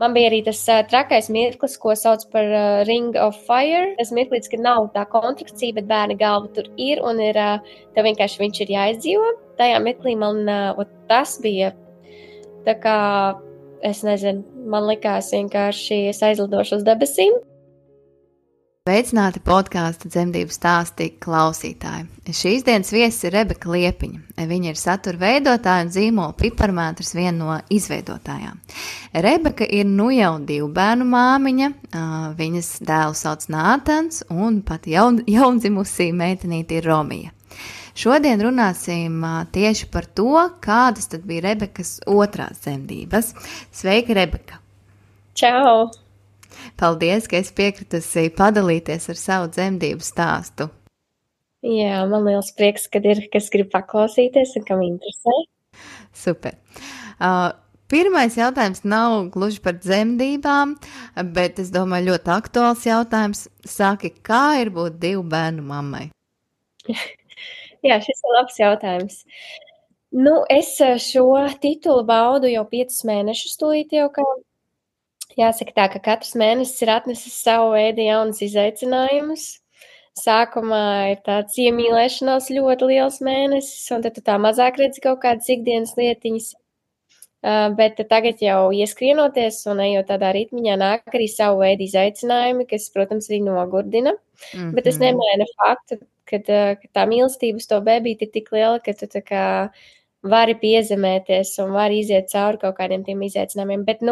Man bija arī tas trakais mirklis, ko sauc par Ring of Fire. Tas mirklis, ka nav tā kontrakcija, bet bērna galva tur ir un ir, tev vienkārši viņš ir jāizdzīvo. Tajā mirklī man tas bija tā kā, es nezinu, man likās vienkārši es aizlidošu uz debesīm. Sveicināti podkāstu Dzemdību stāsti klausītāji. Šīs dienas viesis ir Rebeka Liepiņa. Viņa ir satura veidotāja un zīmola Piparmētrs, viena no izveidotājām. Rebeka ir nu jau 2 bērnu māmiņa, viņas dēlu sauc Nātans un pat jaundzimusī meitenīte ir Romija. Šodien runāsim tieši par to, kādas tad bija Rebekas otrās dzemdības. Sveika, Rebeka! Čau! Paldies, ka esi piekritusi padalīties ar savu dzemdību stāstu. Jā, man liels prieks, kad ir, kas grib paklausīties un kam interesē. Super. Pirmais jautājums nav gluži par dzemdībām, bet es domāju ļoti aktuāls jautājums. Saki, kā ir būt 2 bērnu mammai? Jā, šis ir labs jautājums. Es šo titulu baudu jau 5 mēnešus tūlīt jau kā. Jāsaka tā, ka katrs mēnesis ir atnesis savu veidu jaunas izaicinājumus. Sākumā ir tāds iemīlēšanās ļoti liels mēnesis, un tad tu tā mazāk redzi kaut kādas ikdienas lietiņas. Bet tagad jau ieskrienoties un ejot tādā ritmiņā nāk arī savu veidu izaicinājumi, kas, protams, arī nogurdina. Bet tas nemaina faktu, ka tā mīlestība uz to bebīti ir tik liela, ka tu tā kā vari piezemēties un vari iziet cauri kaut kādiem tiem izaicinājumiem. Bet,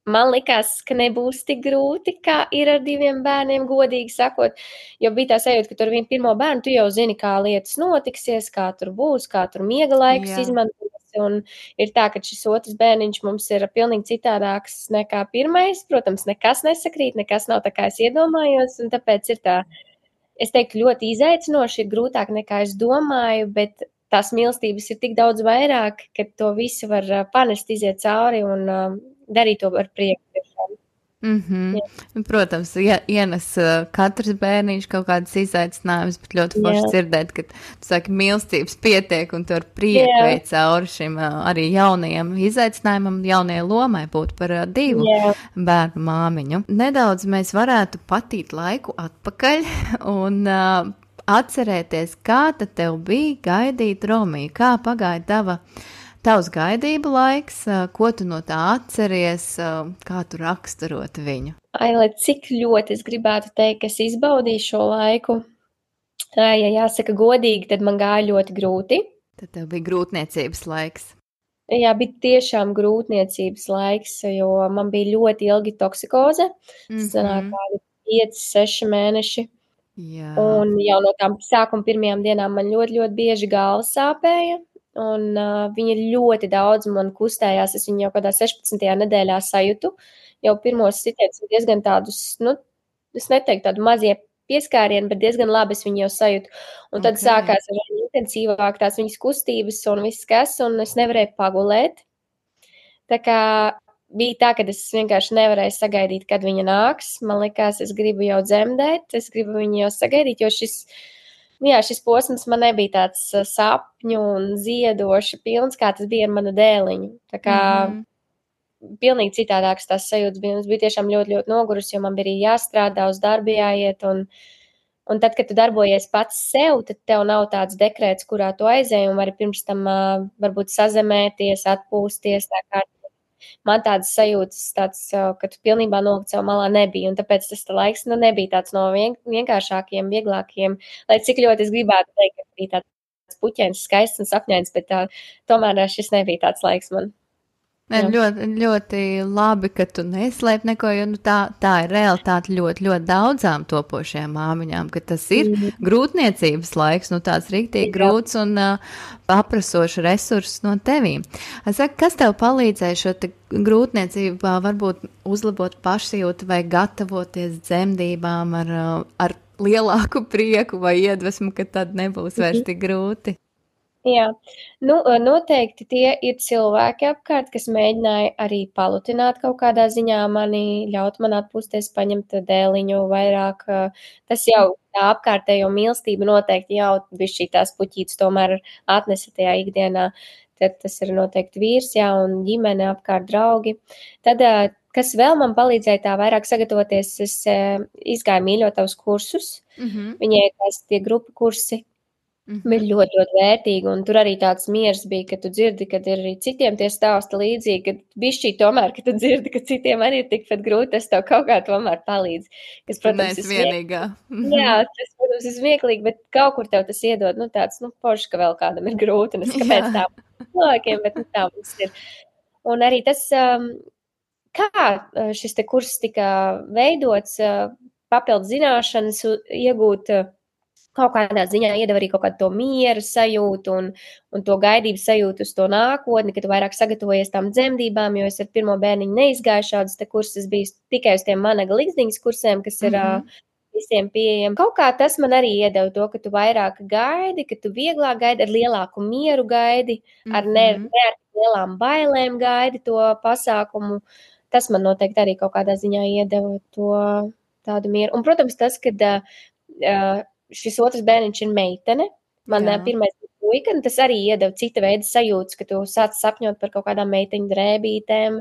man likās, ka nebūs tik grūti, kā ir ar 2 bērniem, godīgi sakot, jo bija tā sajūta, ka tur ar vienu pirmo bērnu tu jau zini, kā lietas notiksies, kā tur būs, kā tur miega laikus izmantos, un ir tā, ka šis otrs bērniņš mums ir pilnīgi citādāks nekā pirmais, protams, nekas nesakrīt, nekas nav tā, kā es iedomājos, un tāpēc ir tā, es teiktu, ļoti izaicinoši, ir grūtāk nekā es domāju, bet tās mīlestības ir tik daudz vairāk, ka to visu var panest, iziet cauri un darīt to ar prieku. Protams, ienes katrs bērniņš kaut kādas izaicinājumus, bet ļoti forši dzirdēt, ka tu saki, mīlestības pietiek un tu ar prieku vei cauri šim arī jaunajam izaicinājumam, jaunajai lomai būt par 2 bērnu māmiņu. Nedaudz mēs varētu patīt laiku atpakaļ un atcerēties, kā tad tev bija gaidīt Romiju, kā pagāja tavs gaidību laiks, ko tu no tā atceries, kā tu raksturot viņu? Lai cik ļoti es gribētu teikt, ka es izbaudīju šo laiku, ja jāsaka godīgi, tad man gāja ļoti grūti. Tad tev bija grūtniecības laiks. Jā, bija tiešām grūtniecības laiks, jo man bija ļoti ilgi toksikoze, sanāk kādi 5-6 mēneši. Jā. Un jau no tām sākuma pirmajām dienām man ļoti, ļoti bieži galva sāpēja. Un viņa ļoti daudz man kustējās, es viņu jau kādā 16. nedēļā sajūtu, jau pirmos sitienus diezgan tādus, es neteiktu tādu mazie pieskārieni, bet diezgan labi es viņu jau sajūtu. Un tad sākās ar intensīvāk tās viņas kustības un viss kas, un es nevarēju pagulēt. Tā kā bija tā, ka es vienkārši nevarēju sagaidīt, kad viņa nāks. Man likās, es gribu jau dzemdēt, es gribu viņu jau sagaidīt, jo šis posms man nebija tāds sapņu un ziedoši pilns, kā tas bija ar manu dēliņu. Tā kā pilnīgi citādāks tās sajūtas bija. Es biju tiešām ļoti, ļoti nogurus, jo man bija arī jāstrādā, uz darbu jāiet. Un tad, kad tu darbojies pats sev, tad tev nav tāds dekrēts, kurā tu aizēji un vari pirms tam varbūt sazemēties, atpūsties. Tā kā man tādas sajūtas, ka tu pilnībā nolikt sev malā nebija, un tāpēc tas laiks nebija tāds no vienkāršākiem, vieglākiem, lai cik ļoti es gribētu teikt, ka bija tāds puķēns, skaists un sapņains, bet tomēr šis nebija tāds laiks man. Ļoti, ļoti labi, ka tu neslēp neko, jo tā ir realitāte ļoti, ļoti daudzām topošajām māmiņām, ka tas ir grūtniecības laiks, tāds riktīgi grūts un paprasošs resursus no tevīm. Kas tev palīdzēja šo grūtniecību varbūt uzlabot pašsajūtu vai gatavoties dzemdībām ar lielāku prieku vai iedvesmu, ka tad nebūs vairs tik grūti? Jā, noteikti tie ir cilvēki apkārt, kas mēģināja arī palutināt kaut kādā ziņā mani, ļaut man atpūsties, paņemt dēliņu vairāk. Tas jau tā apkārtējo mīlestību noteikti jau bišķī tās puķītes tomēr atnesa tajā ikdienā. Tad tas ir noteikti vīrs, jā, un ģimene apkārt draugi. Tad kas vēl man palīdzēja tā vairāk sagatavoties, es izgāju mīļot tavus kursus. Viņai tās tie grupu kursi bija ļoti, ļoti vērtīgi, un tur arī tāds miers bija, ka tu dzirdi, kad ir arī citiem tie stāsti līdzīgi, ka bišķī tomēr, ka tu dzirdi, ka citiem arī ir tikpat grūti, tas tev kaut kā tomēr palīdz. Kas, protams, ir vienīgā. Jā, tas, protams, ir smieklīgi, bet kaut kur tev tas iedod, tāds, forši, ka vēl kādam ir grūti, un es kāpēc tā cilvēkiem, bet tā mums ir. Un arī tas, kā šis te kurs tika veidots, papildu zināšanas iegūt, kaut kādā ziņā iedeva arī kaut kādu to miera sajūtu un to gaidības sajūtu uz to nākotni, ka tu vairāk sagatavojies tām dzemdībām, jo es ar pirmo bērniņu neizgāju šādus te kursus, biju tikai uz tiem Managa Ligzdiņas kursiem, kas ir visiem pieejami. Kaut kā tas man arī iedeva to, ka tu vairāk gaidi, ka tu vieglāk gaidi, ar lielāku mieru gaidi, ar ne ar lielām bailēm gaidi to pasākumu. Tas man noteikti arī kaut kādā ziņā iedeva to tādu mieru. Un, protams, tas, kad šis otrs bērniņš ir meitene, man pirmais bija puika, un tas arī iedeva cita veida sajūtas, ka tu sāc sapņot par kaut kādām meiteņu drēbītēm.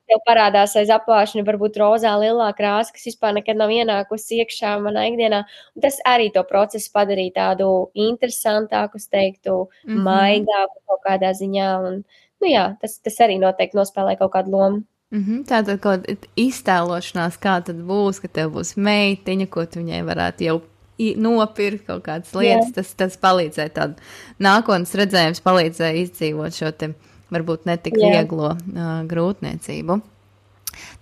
Tev parādās aiz apvāršņa varbūt rozā lielā krāsa, kas vispār nekad nav ienākusi iekšā manā ikdienā. Un tas arī to procesu padarīja tādu interesantāku, es teiktu, maigāku kaut kādā ziņā. Un, tas arī noteikti nospēlē kaut kādu lomu. Tātad kaut iztēlošanās, kā tad būs, ka tev būs meitiņa, ko tu viņai varētu jau nopirkt kaut kādas lietas, tas palīdzēja tādu nākotnes redzējums, palīdzēja izdzīvot šo te varbūt netik vieglo grūtniecību.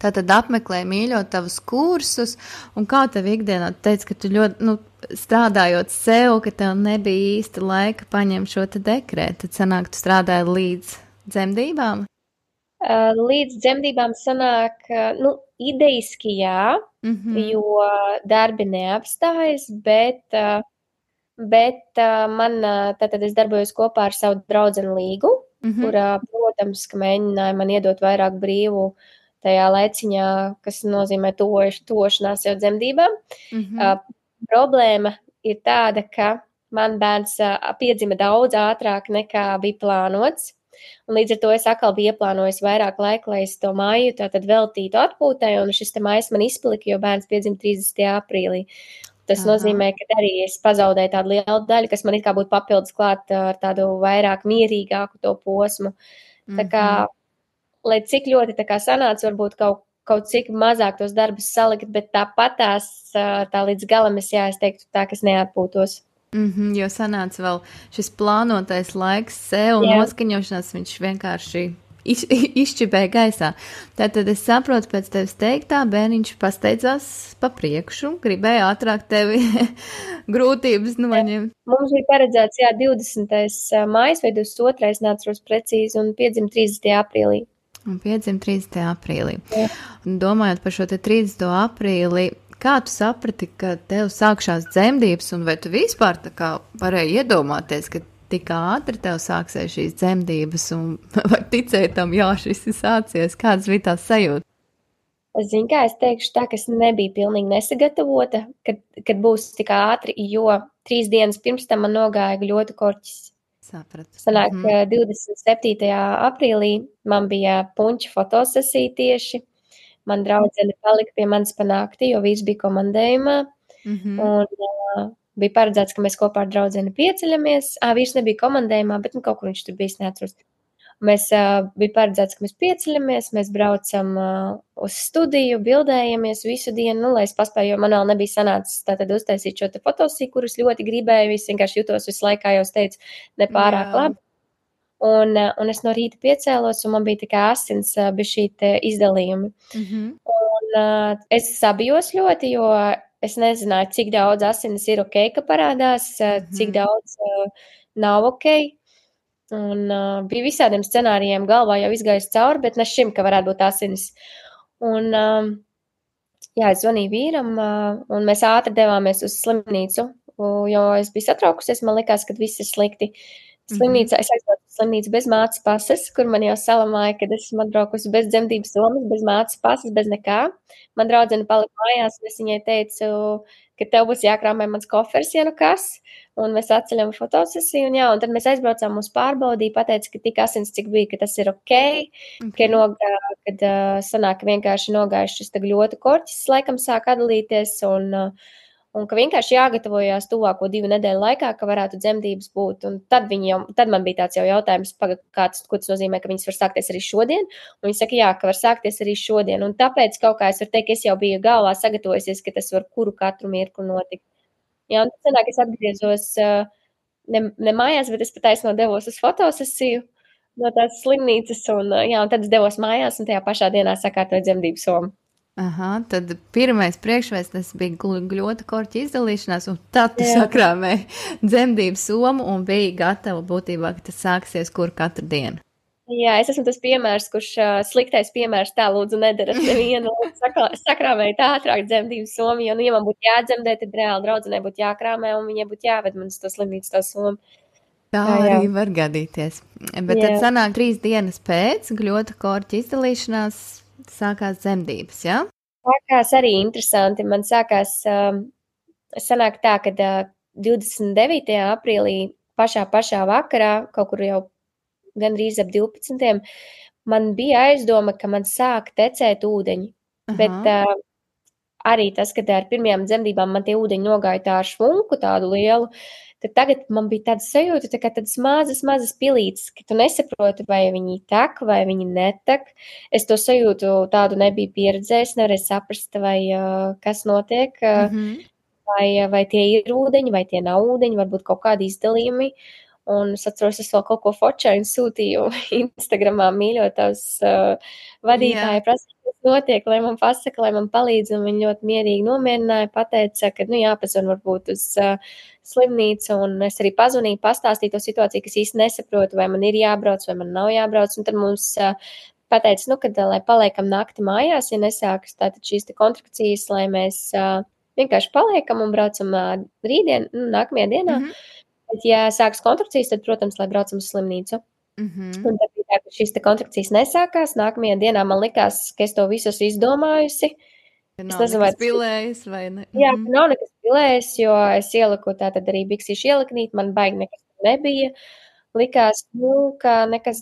Tātad apmeklēji mīļot tavus kursus, un kā tev ikdienā teici, ka tu ļoti, strādājot sev, ka tev nebija īsti laika paņemt šo te dekrētu, tad sanāk, tu strādāji līdz dzemdībām? Līdz dzemdībām sanāk, idejiski jā, jo darbi neapstājas, bet man, tātad es darbojos kopā ar savu draudzeni Līgu, kurā, protams, ka mēģināja man iedot vairāk brīvu tajā laiciņā, kas nozīmē tošanās jau dzemdībām. Problēma ir tāda, ka man bērns piedzima daudz ātrāk nekā bija plānots. Un līdz ar to es atkal biju ieplānojis vairāk laika, lai es to māju tātad veltītu atpūtai, un šis te mājas man izplika, jo bērns piedzima 30. aprīlī. Tas nozīmē, ka arī es pazaudēju tādu lielu daļu, kas man it kā būtu papildus klāt ar tādu vairāk mierīgāku to posmu. Tā kā, lai cik ļoti tā kā sanāca, varbūt kaut cik mazāk tos darbus salikt, bet tāpatās tā līdz galam es teiktu tā, ka es neatpūtos. Jo sanāca vēl šis plānotais laiks sev un noskaņošanās, viņš vienkārši izšķibēja gaisā. Tātad es saprotu, pēc tevis teiktā, bērniņš pasteidzās pa priekšu, gribēja ātrāk tevi grūtības noņemt. Mums bija paredzēts, 20. mājas vai 22. neatceros precīzi, un piedzima 30. aprīlī. Un piedzima 30. aprīlī. Un domājot par šo te 30. aprīli, kā tu saprati, ka tev sākšās dzemdības, un vai tu vispār tā kā varēji iedomāties, ka tik ātri tev sāksies šīs dzemdības, un vai ticēji tam, šis ir sācies? Kādas bija tās sajūtas? Es zinu, kā es teikšu tā, ka es nebiju pilnīgi nesagatavota, kad būs tik ātri, jo 3 dienas pirms tam man nogāja gļotu korķis. Sapratu. Sanāk, 27. aprīlī man bija puņķa fotosesija tieši. Man draudzene palika pie manis pa nakti, jo vīrs bija komandējumā. Un bija paredzēts, ka mēs kopā ar draudzeni pieceļamies. Vīrs nebija komandējumā, bet kaut kur viņš tur bijis, neatceros. Mēs bija paredzēts, ka mēs pieceļamies, mēs braucam uz studiju, bildējamies visu dienu, lai es paspēju, jo man vēl nebija sanācis tātad uztaisīt šo te fotosiju, kurus ļoti gribēju, es vienkārši jutos visu laikā, jau es teicu, nepārāk labi. Un es no rīta piecēlos, un man bija tikai asins bija šī te izdalījumi. Un es sabijos ļoti, jo es nezināju, cik daudz asinis ir ok, ka parādās, cik daudz nav ok. Un bija visādiem scenārijiem galvā jau izgājis cauri, bet ne šim, ka varētu būt asinis. Un es zvanīju vīram, un mēs ātri devāmies uz slimnīcu, jo es biju satraukusies, man likās, ka viss ir slikti. Slimnīcā es aizbraucu uz slimnīcu bez mātes pases, kur man jau salamāja, kad esmu atbraukusi bez dzemdības somas, bez mātes pases, bez nekā. Man draudzene palika mājās, un es viņai teicu, ka tev būs jākrāmē mans kofers, ja nu kas, un mēs atceļam fotosesiju, un jā, un tad mēs aizbraucām, mūs pārbaudīja, pateica, ka tik asins, cik bija, ka tas ir ok, kad sanāk, ka vienkārši nogājuši šis gļotu korķis, laikam sāk atdalīties, un ka vienkārši jāgatavojās tuvāko 2 nedēļu laikā, ka varētu dzemdības būt. Un tad man bija tāds jau jautājums, ko tas nozīmē, ka viņas var sākties arī šodien. Un viņi saka, jā, ka var sākties arī šodien. Un tāpēc kaut kā es varu teikt, ka es jau biju galvā sagatavojusies, ka tas var katru mirkli notikt. Jā, un tad sanāk, es atgriezos ne mājās, bet es pataisno devos uz fotosesiju no tās slimnīcas. Un tad es devos mājās un tajā pašā dienā sakārtoju dzemdību somu. Aha, tad pirmais priekšvēstnes bija gļota korķa izdalīšanās, un tad tu sakrāmēji dzemdību somu un biji gatava būtībā, ka tas sāksies katru dienu. Jā, es esmu tas piemērs, kurš sliktais piemērs tā lūdzu nedarat nevienu. Sakrāmēju tā ātrāk dzemdību somu, jo, ja man būtu jādzemdē, tad reāli draudzenei būtu jākrāmē un viņai būtu jāved man uz to slimnīcu to somu. Tā arī var gadīties. Bet tad sanāk 3 dienas pēc gļota korķa izdalīšanās sākās dzemdības, jā? Sākās arī interesanti. Man sākās, sanāk tā, ka 29. aprīlī pašā vakarā, kaut kur jau gandrīz ap 12. man bija aizdoma, ka man sāk tecēt ūdeņi. Aha. Bet arī tas, kad ar pirmajām dzemdībām man tie ūdeņi nogāja tā ar švunku tādu lielu, tad tagad man bija tāda sajūta, tā kā tādas mazas pilītes, ka tu nesaproti, vai viņi tek, vai viņi netek. Es to sajūtu tādu nebiju pieredzējis, nevarēju saprast, vai kas notiek, vai tie ir ūdeņi, vai tie nav ūdeņi, varbūt kaut kādi izdalījumi. Un es atceros, es vēl kaut ko fočainu sūtīju Instagramā mīļotavas vadītāju prasīju, kas notiek, lai man pasaka, lai man palīdz, un viņi ļoti mierīgi nomierināja, pateica, ka, jāpazvan varbūt uz slimnīcu, un es arī pazvanīju, pastāstīju to situāciju, kas īsti nesaprotu, vai man ir jābrauc, vai man nav jābrauc, un tad mums pateica, kad, lai paliekam nakti mājās, ja nesākas tātad šīs te kontrakcijas, lai mēs vienkārši paliekam un braucam rītdien, nākamajā dienā. Bet, ja sākas kontrakcijas, tad, protams, lai braucam uz slimnīcu. Un tad bija tā, ka šīs te kontrakcijas nesākās. Nākamajā dienā man likās, ka es to visu esmu izdomājusi. Es nezinu, vai tas pilējas vai ne. Jā, nav nekas pilējas, jo es ieliku tātad arī biksīšu ieliknīt, man baigi nekas nebija. Likās, ka nekas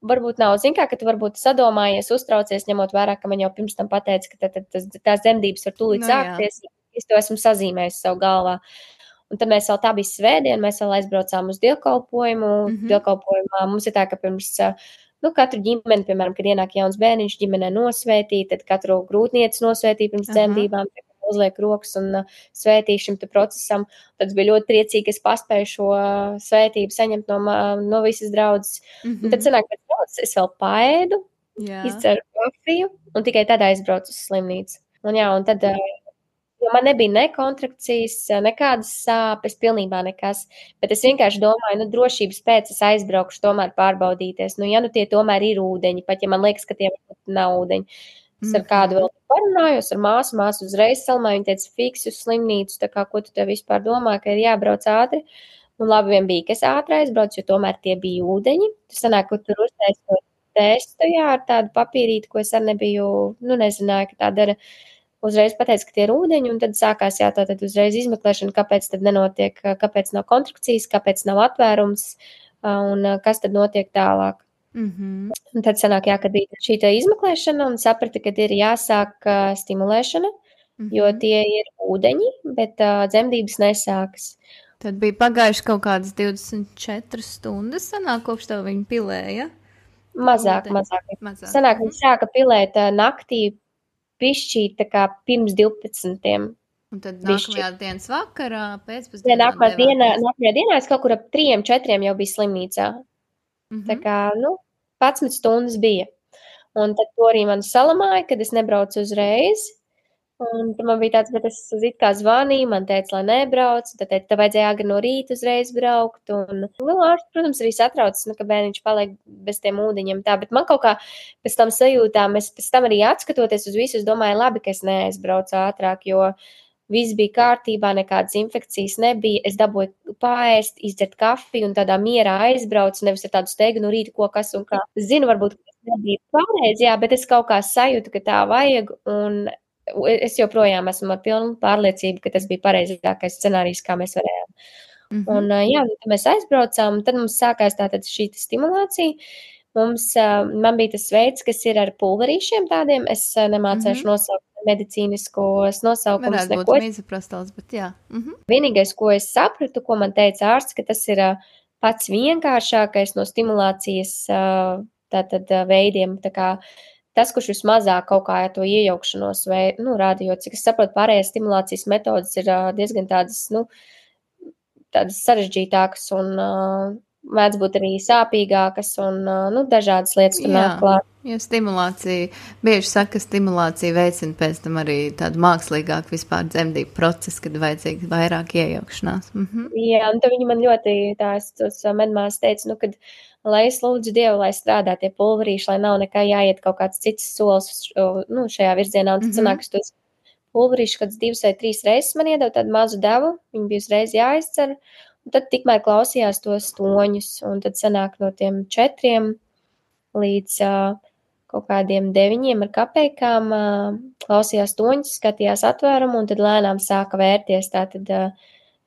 varbūt nav. Zin kā, ka tu varbūt sadomājies, uztraucies, ņemot vērā, ka man jau pirms tam pateica, ka tās dzemdības var tūlīt sākties. Es to esmu sazīmējis savu galvā. Un tad mēs vēl tā bija svētdiena, mēs vēl aizbraucām uz dievkalpojumu. Dievkalpojumā mums ir tā, ka pirms, katru ģimeni, piemēram, kad ienāk jauns bērniņš ģimenē nosvētī, tad katru grūtnieci nosvētī pirms dzemdībām, uzliek rokas un svētī šim te procesam. Tad bija ļoti priecīgi, ka es paspēju šo svētību saņemt no visas draudzes. Un tad sanāk, pēc draudzes es vēl paēdu, izceru kafiju un tikai tad aizbraucu uz slimnīcu. Un tad... Jo man nebija ne kontrakcijas, nekādas sāpes, pilnībā nekas, bet es vienkārši domāju, drošības pēc es aizbraukšu tomēr pārbaudīties. Tie tomēr ir ūdeņi, pat ja man liekas, ka tie nav ūdeņi. Es ar kādu vēl parunājos, ar māsu uzreiz salmā, viņa teica, fiksi uz slimnīcu, tā kā, ko tu te vispār domā, ka ir jābrauc ātri. Un labi vien bija, ka es ātri aizbraucu, jo tomēr tie bija ūdeņi. Tu sanāk, ka tur uztaisot testu, ar tādu papīrīti, ko es arī nebiju, nezināju, ka tā dara. Uzreiz pateica, ka tie ir ūdeņi, un tad sākās tātad uzreiz izmeklēšana, kāpēc tad nenotiek, kāpēc nav kontrakcijas, kāpēc nav atvērums, un kas tad notiek tālāk. Un tad sanāk, kad bija šī izmeklēšana, un saprata, ka ir jāsāk stimulēšana, jo tie ir ūdeņi, bet dzemdības nesākas. Tad bija pagājuši kaut kādas 24 stundas, sanāk, kopš tev viņi pilēja? Mazāk. Sanāk, viņi sāka pilēt naktī, pišķīt tā kā pirms 12. Un tad nākamajā dienas vakarā, pēcpusdienā? Nākamajā dienā es kaut kur ap 3-4 jau biju slimnīcā. Tā kā, 11 stundas bija. Un tad to arī man salamāja, kad es nebraucu uzreiz. Un tad man bija tāds, bet es it kā zvanīju, man teica, lai nebrauc. Tad teica, tev vajadzēja agri no rīta uzreiz braukt. Un ārsts, protams, arī satraucas, ka bērniņš paliek bez tiem ūdeņiem. Tā, bet man kaut kā pēc tam sajūtām, es pēc tam arī atskatoties uz visu, es domāju, labi, ka es neaizbraucu ātrāk, jo viss bija kārtībā, nekādas infekcijas nebija, es dabūju paēst, izdzert kafiju un tādā mierā aizbraucu, nevis ar tādu steigu no rīta, ko kas un kā. Zinu, varbūt, ka tas nebija pareizi, jā, bet es kaut kā sajūtu, ka tā vajag, un es joprojām esmu ar pilnu pārliecību, ka tas bija pareizākais scenārijs, kā mēs varējām. Un, jā, tad mēs aizbraucām, tad mums sākās tātad šī stimulācija. Man bija tas veids, kas ir ar pulverīšiem tādiem, es nemācēšu nosaukt medicīniskos nosaukumus. Varētu būt mizoprostols, bet jā. Vienīgais, ko es sapratu, ko man teica ārsts, ka tas ir pats vienkāršākais no stimulācijas tātad veidiem, tā kā tas, kurš vismazāk kaut kā to iejaukšanos rāda, jo, cik es saprotu, pārējās stimulācijas metodas ir diezgan tādas, tādas sarežģītākas un mēdz būt arī sāpīgākas un dažādas lietas tur nāk klāt. Jo stimulācija, bieži saka, ka stimulācija veicina pēc tam arī tādu mākslīgāku vispār dzemdību procesu, kad vajadzīga vairāk iejaukšanās. Jā, un tad viņi man ļoti tās medmās teica, kad lai es lūdzu Dievu, lai strādā tie pulverīši, lai nav nekā jāiet kaut kāds cits solis šajā virzienā, un tad sanāk, ka tos pulverīši kāds 2 vai 3 reizes man iedeva tādu mazu devu, viņi bija uzreiz jāizcer, un tad tikmēr klausījās tos toņus, un tad sanāk no tiem 4 līdz kaut kādiem 9 ar kapeikām, klausījās toņus, skatījās atvērumu, un tad lēnām sāka vērties tātad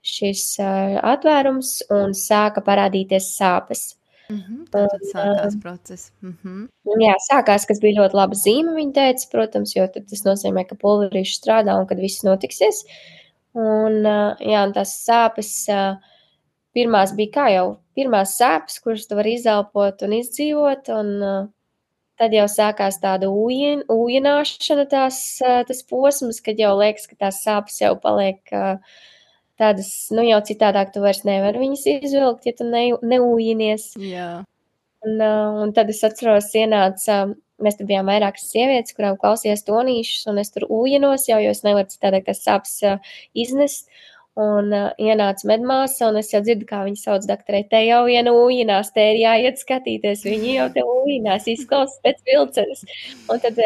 šis atvērums, un sāka parādīties sāpes. Tad sākās process. Jā, sākās, kas bija ļoti laba zīme, viņa teica, protams, jo tad tas nozīmē, ka pulverīši strādā un kad viss notiksies. Un, jā, un tās sāpes, pirmās bija kā jau pirmās sāpes, kuras tu vari izelpot un izdzīvot, un tad jau sākās tāda ūjināšana tas posms, kad jau liekas, ka tās sāpes jau paliek tādas, jau citādāk tu vairs nevar viņas izvilkt, ja tu neūjinies. Jā. Un tad es atceros, mēs tur bijām vairākas sievietes, kurām klausījās tonīšus, un es tur ūjinos jau, jo es nevaru citādāk tās sāpes iznest. Un ienāca medmāsa, un es jau dzirdu, kā viņa sauc doktorei, te jau viena ūjinās, te ir jāiet skatīties, viņi jau te ūjinās, izklausās pēc vilcenes. Un tad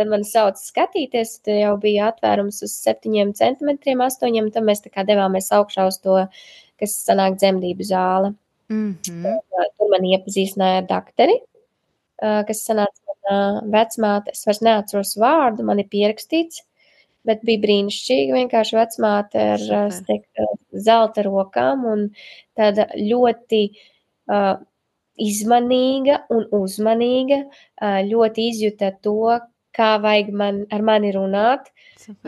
mani sauc skatīties, tad jau bija atvērums uz 7 centimetriem, 8, tad mēs tā kā devāmies augšā uz to, kas sanāk dzemdību zāle. Tur mani iepazīstināja ar doktori, kas sanāca mana vecmāte, es vairs neatceros vārdu, man ir pierakstīts, bet bija brīnišķīga, vienkārši vecmāte ar zelta rokām un tāda ļoti izmanīga un uzmanīga, ļoti izjuta to, kā vajag ar mani runāt,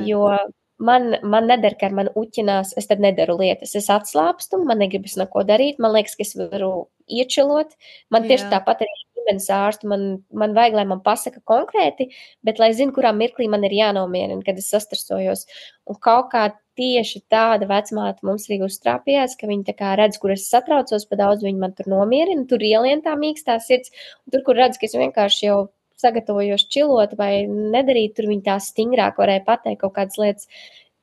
jo man neder, ka ar mani uķinās, es tad nedaru lietas, es atslāpstu, man negribas neko darīt, man liekas, ka es varu iečilot, man tieši tāpat arī ģimenes ārstu, man vajag, lai man pasaka konkrēti, bet lai zinu, kurā mirklī man ir jānomierina, kad es sastresojos. Un kaut kā tieši tāda vecmāte mums arī uztrāpījās, ka viņi tā kā redz, kur es satraucos, pa daudz viņi man tur nomierina, tur ielien tā mīkstā sirds, un tur, kur redz, ka es vienkārši jau sagatavojos čilot vai nedarīt, tur viņi tā stingrāk varēja pateikt kaut kādas lietas,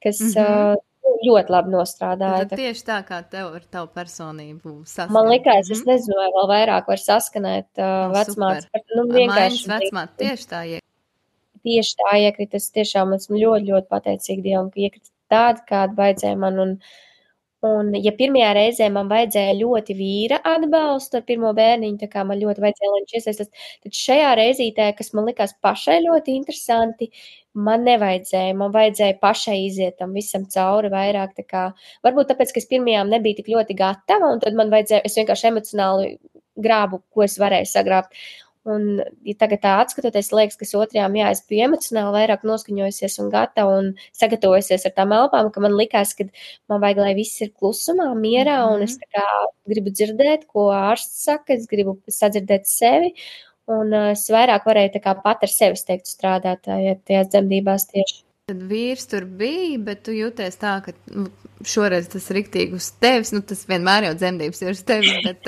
kas ļoti labi nostrādāja. Tad tieši tā, kā tev ar tavu personību saskanēt. Man likās, es nezinu, vai vēl vairāk var saskanēt vecmātes. Mājas vecmāte tieši tā iekrita. Tieši tā iekrita. Es tiešām esmu ļoti, ļoti pateicīga Dievam, ka iekrita tāda, kāda vajadzēja man. Un ja pirmajā reizē man vajadzēja ļoti vīra atbalstu ar pirmo bērniņu, tā kā man ļoti vajadzēja, lai viņš iesaistās, tad šajā reizītē, kas man likās pašai ļoti interesanti, man nevajadzēja, man vajadzēja pašai iziet tam visam cauri vairāk, tā kā, varbūt tāpēc, ka es pirmajām nebija tik ļoti gatava, un tad man vajadzēja, es vienkārši emocionāli grābu, ko es varēju sagrābt. Un ja tagad tā atskatoties, liekas, ka otrajām, es biju emocionāli vairāk noskaņojusies un gatava un sagatavojusies ar tām elpām, ka man likās, ka man vajag, lai viss ir klusumā, mierā, un es tā kā gribu dzirdēt, ko ārsts saka, es gribu sadzirdēt sevi, un es vairāk varēju tā kā pat ar sevi, es teiktu, strādāt tajās dzemdībās tieši. Tad vīrs tur bija, bet tu jūties tā, ka šoreiz tas riktīgi uz tevis, tas vienmēr jau dzemdības ir uz tevis, bet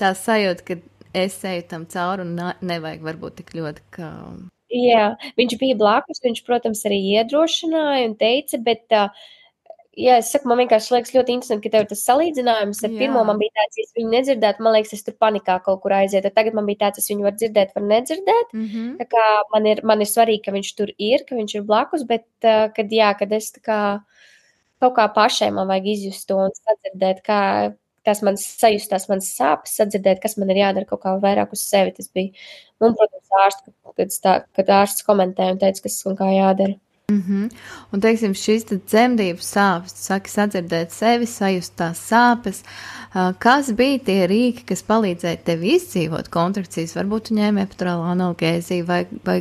tā sajūta, ka es eju tam cauri un nevajag varbūt tik ļoti, ka... Jā, viņš bija blakus, viņš, protams, arī iedrošināja un teica, bet jā, es saku, man vienkārši liekas ļoti interesanti, ka tev tas salīdzinājums ar pirmo man bija tāds, ja es viņu nedzirdētu, man liekas, es tur panikā kaut kur aizietu. Tagad man bija tāds, es viņu varu dzirdēt, var nedzirdēt. Tā kā man ir svarīgi, ka viņš tur ir, ka viņš ir blakus, bet, kad es tā kā kaut kā pašai man vajag izjust to un sadzirdēt, kā tas man sajust, tās manas sāpes, sadzirdēt, kas man ir jādara kaut kā vairāk uz sevi. Tas bija, un, protams, kad ārsts komentēja un teica, kas un kā jādara. Un, teiksim, šīs dzemdību sāpes, tu saki sadzirdēt sevi, sajust tās sāpes. Kas bija tie rīki, kas palīdzēja tev izdzīvot kontrakcijas? Varbūt tu ņēmi epidurālo analgēziju vai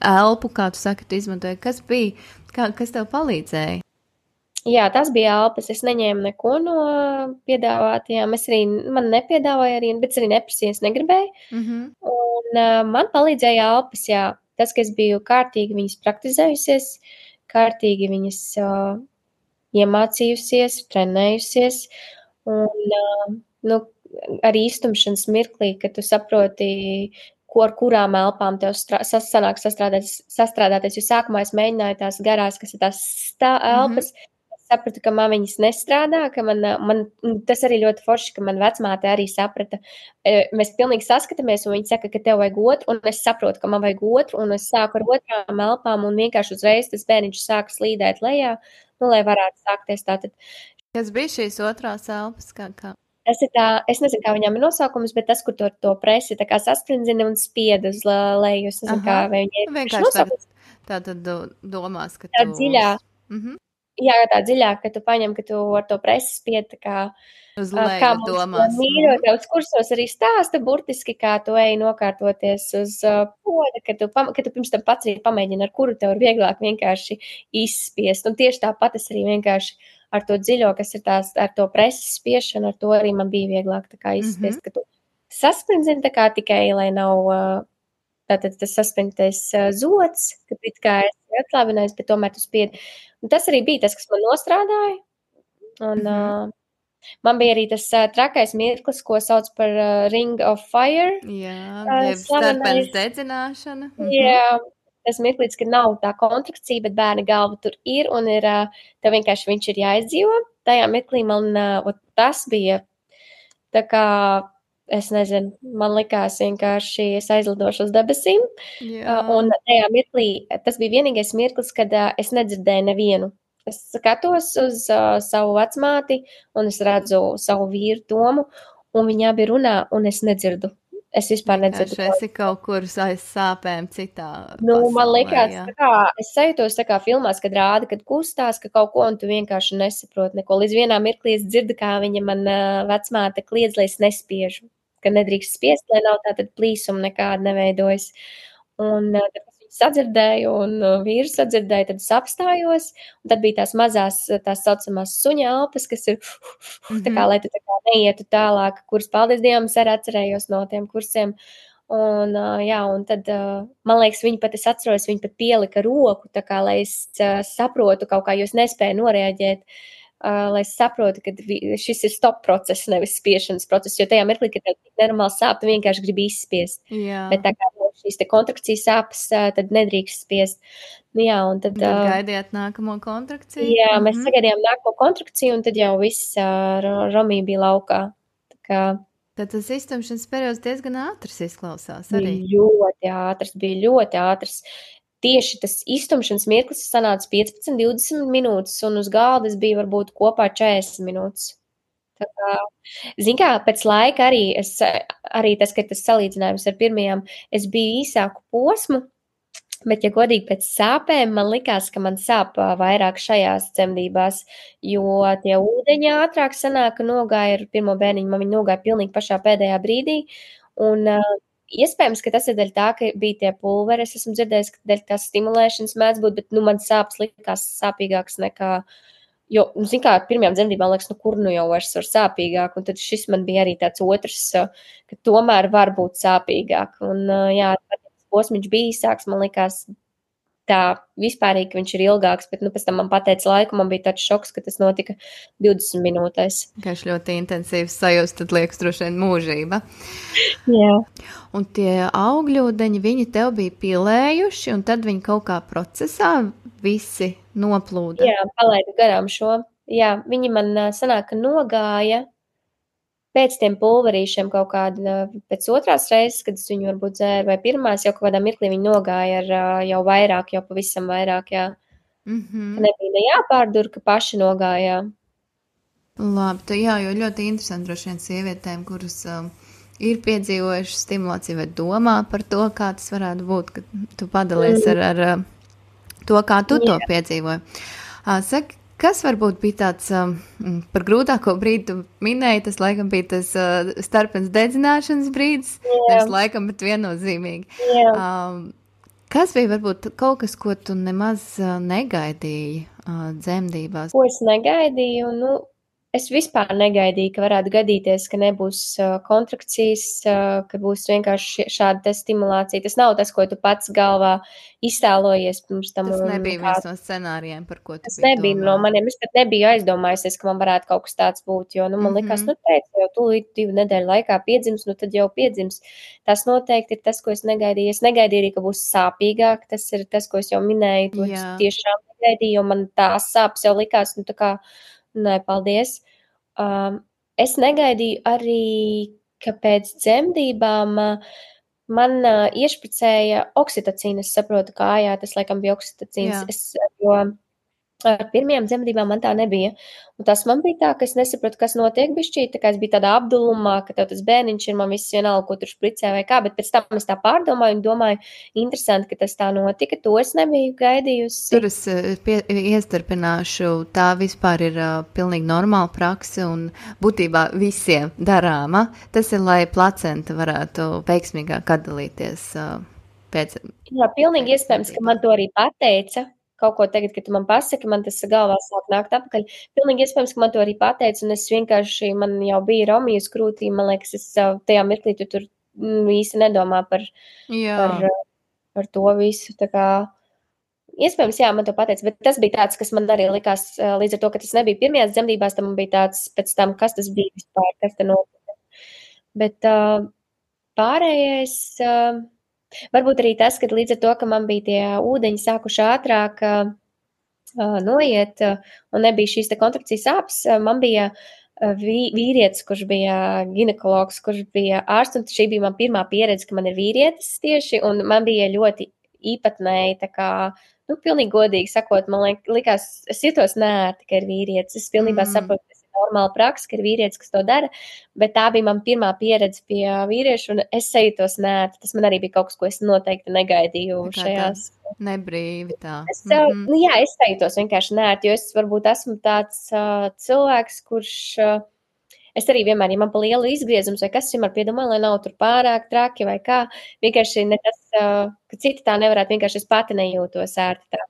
elpu, kā tu saki, tu izmantoji. Kas bija? Kas tev palīdzēja? Jā, tas bija elpas. Es neņēmu neko no piedāvātajām. Man nepiedāvāja arī, bet es arī neprasīju, es negribēju. Un man palīdzēja elpas, jā. Tas, ka es biju kārtīgi viņas praktizējusies, kārtīgi viņas iemācījusies, trenējusies, un arī iztumšanas mirklī, kad tu saproti, ar kurām elpām tev sanāk sastrādāties, jo sākumā es mēģināju tās garās, kas ir tās elpas, sapratu, ka man viņas nestrādā, ka man tas arī ļoti forši, ka man vecmāte arī saprata. Mēs pilnīgi saskatāmies, un viņa saka, ka tev vajag otru, un es saprotu, ka man vajag otru, un es sāku ar otrām elpām, un vienkārši uzreiz tas bērniņš sāka slīdēt lejā, lai varētu sākties tātad. Kas bija šīs otrās elpas? Kā? Tas ir es nezinu, kā viņām ir nosaukums, bet tas, kur to presi tā kā sasprindzina un spied uz leju. Es nezinu, kā vai viņi ir nosaukums. Tātad domās, ka tā dziļā. Jā, tā dziļāk, ka tu paņem, ka tu ar to presi spied, tā kā uz leju domās. Mīrotāvs kursos arī stāsta burtiski, kā tu ej nokārtoties uz poda, ka tu pirms tam pats arī pamēģini, ar kuru tev ir vieglāk vienkārši izspiest. Un tieši tāpat es arī vienkārši ar to dziļo, kas ir tās, ar to presi spiešanu, ar to arī man bija vieglāk tā kā izspiest, ka tu sasprindzini tā kā tikai, lai nav tātad tas saspringtais zods, ka it kā esi atslābinājis, bet tomēr tu spiedi. Un tas arī bija tas, kas man nostrādāja. Un man bija arī tas trakais mirklis, ko sauc par Ring of Fire. Jā, starpens dedzināšana. Jā, tas mirklis, ka nav tā kontrakcija, bet bērna galva tur ir, un tev vienkārši viņš ir jāizdzīvo. Tajā mirklī man tas bija tā kā, es nezinu, man likās vienkārši es aizlidošu uz debesīm. Un tajā mirklī, tas bija vienīgais mirklis, kad es nedzirdēju nevienu. Es skatos uz savu vecmāti, un es redzu savu vīru Tomu, un viņi abi runā, un es nedzirdu. Es vispār nedzirdu. Es esi kaut kur aiz sāpēm citā pasaulē, man likās, tā kā, es sajūtos tā kā filmās, kad rāda, kad kustās, ka kaut ko, un tu vienkārši nesaproti neko. Līdz vienā mirklī es dzirdu, kā viņa man vecmāte kliedz, lai es nespiežu, ka nedrīkst spiest, lai nav tātad plīsuma nekāda neveidojas. Un tad es viņu sadzirdēju, un vīru sadzirdēju, tad es apstājos, un tad bija tās mazās, tās saucamās suņa elpas, kas ir, tā kā, lai tu tā kā neietu tālāk, kuras, paldies Dievam, es arī atcerējos no tiem kursiem. Un, jā, un tad, man liekas, es atceros, viņi pat pielika roku, tā kā, lai es saprotu kaut kā, jo es nespēju noreaģēt, lai es saprotu, ka šis ir stop process, nevis spiešanas process, jo tajā mirklī, kad tev nenormāli sāp, tu vienkārši gribi izspiest. Jā. Bet tā kā šīs te kontrakcijas sāpes, tad nedrīkst spiest. Jā, un tad gaidījāt nākamo kontrakciju? Jā, mēs sagaidījām nākamo kontrakciju, un tad jau viss Romija bija laukā. Tā kā tad tas iztumšanas periods diezgan ātrs izklausās arī. Bija ļoti ātrs. Tieši tas iztumšanas mirklis sanāca 15-20 minūtes, un uz galda es biju varbūt kopā 40 minūtes. Tā kā, zin kā, pēc laika arī tas, ka tas salīdzinājums ar pirmajām, es biju īsāku posmu, bet, ja godīgi pēc sāpēm, man likās, ka man sāp vairāk šajās dzemdībās, jo tie ūdeņi ātrāk sanāka, nogāja ar pirmo bērniņu, man viņi nogāja pilnīgi pašā pēdējā brīdī, un iespējams, ka tas ir dēļ tā, ka bija tie pulveri, es esmu dzirdējis, ka dēļ tās stimulēšanas mēdz būt, bet, man sāpes likās sāpīgāks nekā, jo, zin kā, ar pirmajām dzemdībām liekas, kur jau vairs var sāpīgāk, un tad šis man bija arī tāds otrs, ka tomēr var būt sāpīgāk, un, jā, posmiņš bija īsāks, man likās tā vispārīgi, ka viņš ir ilgāks, bet, pēc tam man pateica laiku, man bija tāds šoks, ka tas notika 20 minūtēs. Kā ļoti intensīvs sajūst, tad liekas droši vien mūžība. Jā. Un tie augļūdeņi, viņi tev bija pilējuši, un tad viņi kaut kā procesā visi noplūda. Jā, palaidu garām šo. jā, viņi man sanāk, ka nogāja pēc tiem pulverīšiem kaut kāda, pēc otrās reizes, kad es viņu varbūt dzēru, vai pirmās, jau kaut kādā mirklī viņi nogāja ar jau vairāk, jau pavisam vairāk, jā. Ka nebija ne jāpārdur, ka paši nogājā. Labi, jā, jo ļoti interesanti droši vien sievietēm, kuras ir piedzīvojušas stimulāciju vai domā par to, kā tas varētu būt, ka tu padalies ar to, kā tu to piedzīvoji. Saki, kas varbūt bija tāds par grūtāko brīdi, tu minēji, tas laikam bija tas starpens dedzināšanas brīdis, nevis laikam, bet viennozīmīgi. Kas bija varbūt kaut kas, ko tu nemaz negaidīji dzemdībās? Ko es negaidīju? Nu, es vispār negaidīju, ka varētu gadīties, ka nebūs kontrakcijas, ka būs vienkārši šāda stimulācija. Tas nav tas, ko tu pats galvā iztēlojies pirms tam. Tas nebija viens no scenārijiem, par ko tu tas nebija no maniem. Es pat nebiju aizdomājusies, ka man varētu kaut kas tāds būt, jo, man likās, teicu, jau tūlīt 2 nedēļu laikā piedzims, tad jau piedzims. Tas noteikti ir tas, ko es negaidīju. Es negaidīju arī, ka būs sāpīgāk. Tas ir tas, ko es jau minēju. To tiešām negaidīju, jo man tās sāpes jau likās, tā kā, nē, paldies. Es negaidīju arī, ka pēc dzemdībām man iešpricēja oksitocīnu. Es saprotu, kājā tas laikam bija oksitocīns. Jo ar pirmajām dzemdībām man tā nebija. Un tas man bija tā, ka es nesapratu, kas notiek bišķīt, tā kā es biju tādā apdulumā, ka tev tas bērniņš ir, man viss vienalga, ko tur špricē vai kā, bet pēc tam es tā pārdomāju un domāju, interesanti, ka tas tā notika, to es nebiju gaidījusi. Tur es iestarpināšu, tā vispār ir pilnīgi normāla prakse un būtībā visiem darāma. Tas ir, lai placenta varētu veiksmīgāk atdalīties pēc. Jā, pilnīgi iespējams, ka man to arī pateica. Kaut ko tagad, kad tu man pasaki, man tas galvā sāk nākt atpakaļ. Pilnīgi iespējams, ka man to arī pateica, un es vienkārši, man jau bija Romijas krūtī, man liekas, es tajā mirklī tu tur īsti nedomā par to visu, tā kā, iespējams, jā, man to pateica, bet tas bija tāds, kas man arī likās, līdz ar to, ka tas nebija pirmajās dzemdībās, tam man bija tāds, pēc tam, kas tas bija vispār, kas te notika. Bet pārējais... Varbūt arī tas, ka līdz ar to, ka man bija tie ūdeņi sākuši ātrāk noiet un nebija šīs te kontrakcijas sāpes, man bija vīrietis, kurš bija ginekologs, kurš bija ārsts, un šī bija man pirmā pieredze, ka man ir vīrietis tieši, un man bija ļoti īpatnēji, tā kā, pilnīgi godīgi sakot, man likās, es jutos neērti, ka ir vīrietis, es pilnībā saprotu, normāla praksa, ka ir vīrietis, kas to dara, bet tā bija man pirmā pieredze pie vīriešu, un es sajūtos neērti. Tas man arī bija kaut kas, ko es noteikti negaidīju šajās. Nebrīvi tā. Es sajūtos vienkārši neērti, jo es varbūt esmu tāds cilvēks, kurš, es arī vienmēr, ja man pa lielu izgriezums vai kas, vienmēr piedomāju, lai nav tur pārāk traki vai kā, vienkārši ne tas, ka citi tā nevarētu, vienkārši es pati nejūtos ērti tā.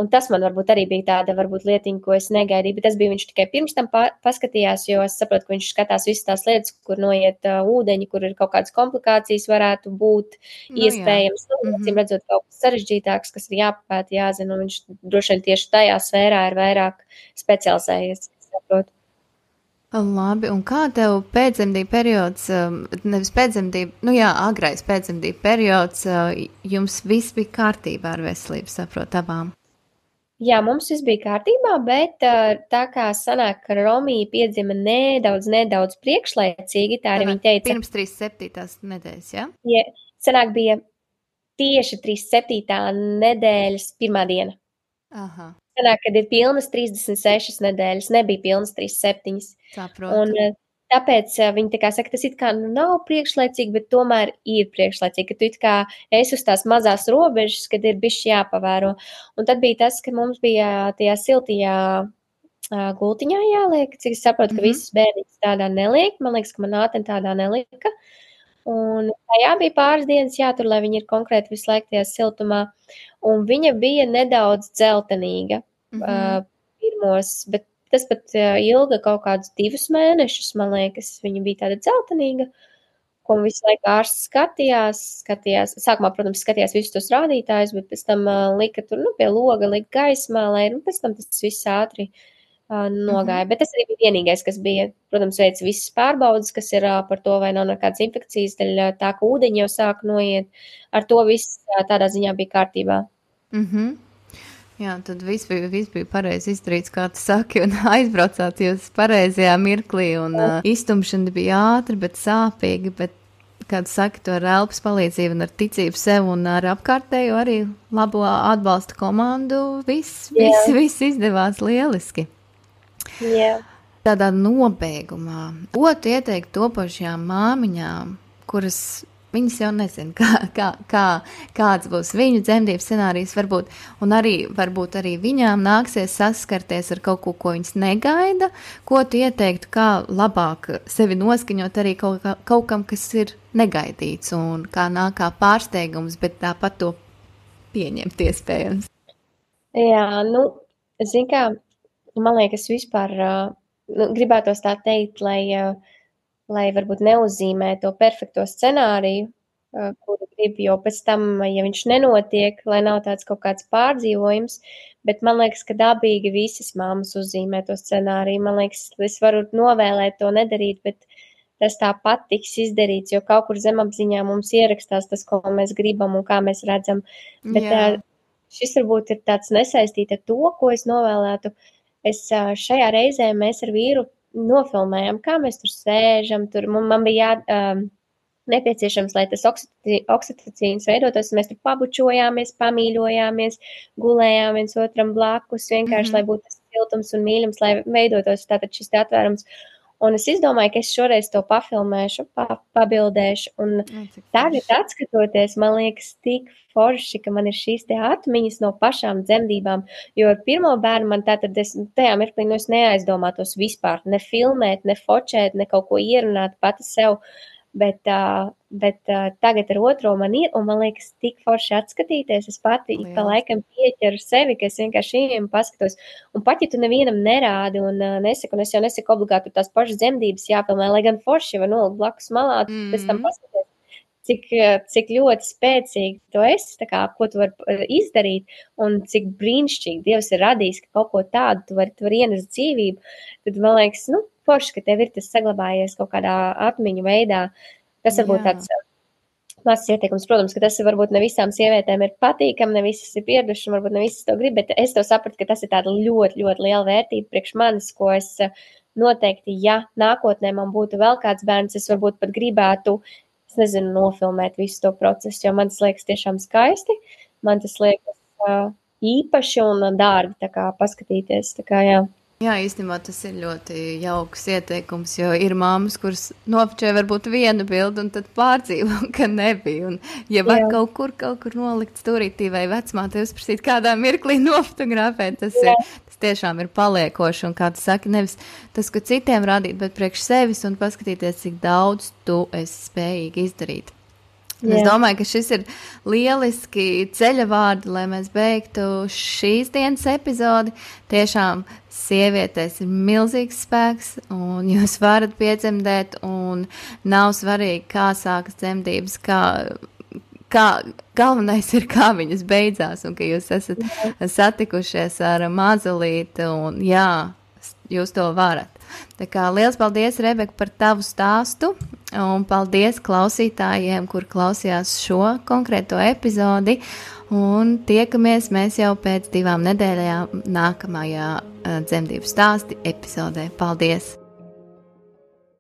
Un tas man varbūt arī bija tāda varbūt lietiņa, ko es negaidīju, bet tas bija viņš tikai pirms tam paskatījās, jo es saprotu, ka viņš skatās visas tās lietas, kur noiet ūdeņi, kur ir kaut kādas komplikācijas varētu būt iespējams. Acīm redzot kaut kas sarežģītāks, kas ir jāpapēta, jāzina, un viņš droši vien tieši tajā sfērā ir vairāk specializējies, saprotu. Labi, un kā tev pēcdzemdību periods, nevis pēcdzemdību, agrais pēcdzemdību periods, jums viss bija kārtībā ar veselību, saprot, abām? Jā, mums viss bija kārtībā, bet tā kā sanāk, ka Romija piedzima nedaudz priekšlaicīgi, tā arī viņa teica. Pirms 37. nedēļas, ja? Ja, sanāk bija tieši 37. nedēļas pirmā diena. Aha. Sanāk, kad ir pilnas 36 nedēļas, nebija pilnas 37. Saprotu. Un tāpēc viņi tā kā saka, tas it kā nav priekšlaicīgi, bet tomēr ir priekšlaicīgi, ka tu it kā esi uz tās mazās robežas, kad ir bišķi jāpavēro. Un tad bija tas, ka mums bija tajā siltajā gultiņā jāliek, cik es saprotu, ka visas bērniņas tādā neliek. Man liekas, ka man āteni tādā nelika. Un tajā bija pāris dienas jātur, lai viņa ir konkrēti visu laiku tajā siltumā. Un viņa bija nedaudz dzeltenīga pirmos, bet tas pat ilga kaut kādus 2 mēnešus, man liekas, viņa bija tāda dzeltenīga, ko visu laiku ārsts skatījās. Sākumā, protams, skatījās visus tos rādītājus, bet pēc tam lika tur, pie loga, lika gaismā, lai, pēc tam tas viss ātri nogāja. Bet tas arī bija vienīgais, kas bija, protams, veica visas pārbaudas, kas ir par to, vai nav nekādas infekcijas, daļ tā, ka ūdeņi jau sāk noiet. Ar to viss tādā ziņā bija kārtībā. Jā, tad viss bija pareizi izdarīts, kā tu saki, un aizbraucāt jūs pareizajā mirklī, un iztumšana bija ātra, bet sāpīga, bet, kā tu saki, to ar elpas palīdzību un ar ticību sev un ar apkārtējo arī labo atbalsta komandu, viss izdevās lieliski. Jā. Tādā nobeigumā, ko tu ieteiktu topošajām māmiņām, kuras viņas jau nezina, kāds būs viņu dzemdības scenārijs, varbūt arī viņām nāksies saskarties ar kaut ko viņas negaida, ko tu ieteiktu, kā labāk sevi noskaņot arī kaut kam, kas ir negaidīts un kā nāk kā pārsteigums, bet tāpat to pieņemt iespējams. Jā, zin kā, man liekas vispār, gribētos tā teikt, lai varbūt neuzzīmē to perfekto scenāriju, kuru grib, jo pēc tam, ja viņš nenotiek, lai nav tāds kaut kāds pārdzīvojums, bet man liekas, ka dabīgi visas mammas uzzīmē to scenāriju. Man liekas, es varu novēlēt to nedarīt, bet tas tāpat tiks izdarīts, jo kaut kur zemapziņā mums ierakstās tas, ko mēs gribam un kā mēs redzam. Bet šis varbūt ir tāds nesaistīt ar to, ko es novēlētu. Šajā reizē mēs ar vīru nofilmējam, kā mēs tur sēžam, man bija nepieciešams, lai tas oksitocīns veidotos, mēs tur pabučojāmies, pamīļojāmies, gulējām viens otram blakus, vienkārši, lai būtu tas siltums un mīļums, lai veidotos tātad šis atvērums. Un es izdomāju, ka es šoreiz to pafilmēšu, pabildēšu, un tagad atskatoties, man liekas tik forši, ka man ir šīs te atmiņas no pašām dzemdībām, jo ar pirmo bērnu man tātad tajā mirklī, es neaizdomātos vispār, ne filmēt, ne fočēt, ne kaut ko ierunāt pati sev, bet tagad ar otro man ir, un man liekas tik forši atskatīties, es pati pa laikam pieķeru sevi, ka es vienkārši ieejam paskatos, un pat, ja tu nevienam nerādi un nesaku, un es jau nesaku obligāti tās pašas dzemdības jāpilnē, lai gan forši var nolikt blakus malā, pēc tam paskaties, cik ļoti spēcīgi tu esi, tā kā, ko tu vari izdarīt, un cik brīnišķīgi Dievs ir radījis, ka kaut ko tādu tu vari ienest dzīvību, tad man liekas, forši, ka tev ir tas saglabājies kaut kādā atmiņu veidā. Tas varbūt tāds mazs ieteikums, protams, ka tas varbūt ne visām sievietēm ir patīkami, ne visas ir pieradušas, un varbūt ne visas to grib, bet es to sapratu, ka tas ir tāda ļoti, ļoti liela vērtība priekš manis, ko es noteikti, ja nākotnē man būtu vēl kāds bērns, es varbūt pat gribētu, nofilmēt visu to procesu, jo man tas liekas tiešām skaisti, man tas liekas īpaši un dārgi, tā kā paskatīties, tā kā jā. Jā, īstenībā tas ir ļoti jauks ieteikums, jo ir māmas, kuras nofočē varbūt vienu bildi un tad pārdzīvo, ka nebija. Un, ja var kaut kur nolikt stūrītī vai vecmāte uzprasīt kādā mirklī nofotografēt, tas tiešām ir paliekoši. Un kā tu saki, nevis tas, ko citiem rādīt, bet priekš sevis un paskatīties, cik daudz tu esi spējīgi izdarīt. Es domāju, ka šis ir lieliski ceļa vārdi, lai mēs beigtu šīs dienas epizodi. Tiešām sievietēs ir milzīgs spēks, un jūs varat piedzemdēt, un nav svarīgi, kā sākas dzemdības, kā galvenais ir, kā viņas beidzās, un ka jūs esat satikušies ar mazulīti, un jūs to varat. Tā kā liels paldies, Rebeka, par tavu stāstu, un paldies klausītājiem, kur klausījās šo konkrēto epizodi, un tiekamies mēs jau pēc 2 nedēļām nākamajā dzemdību stāsti epizodē. Paldies!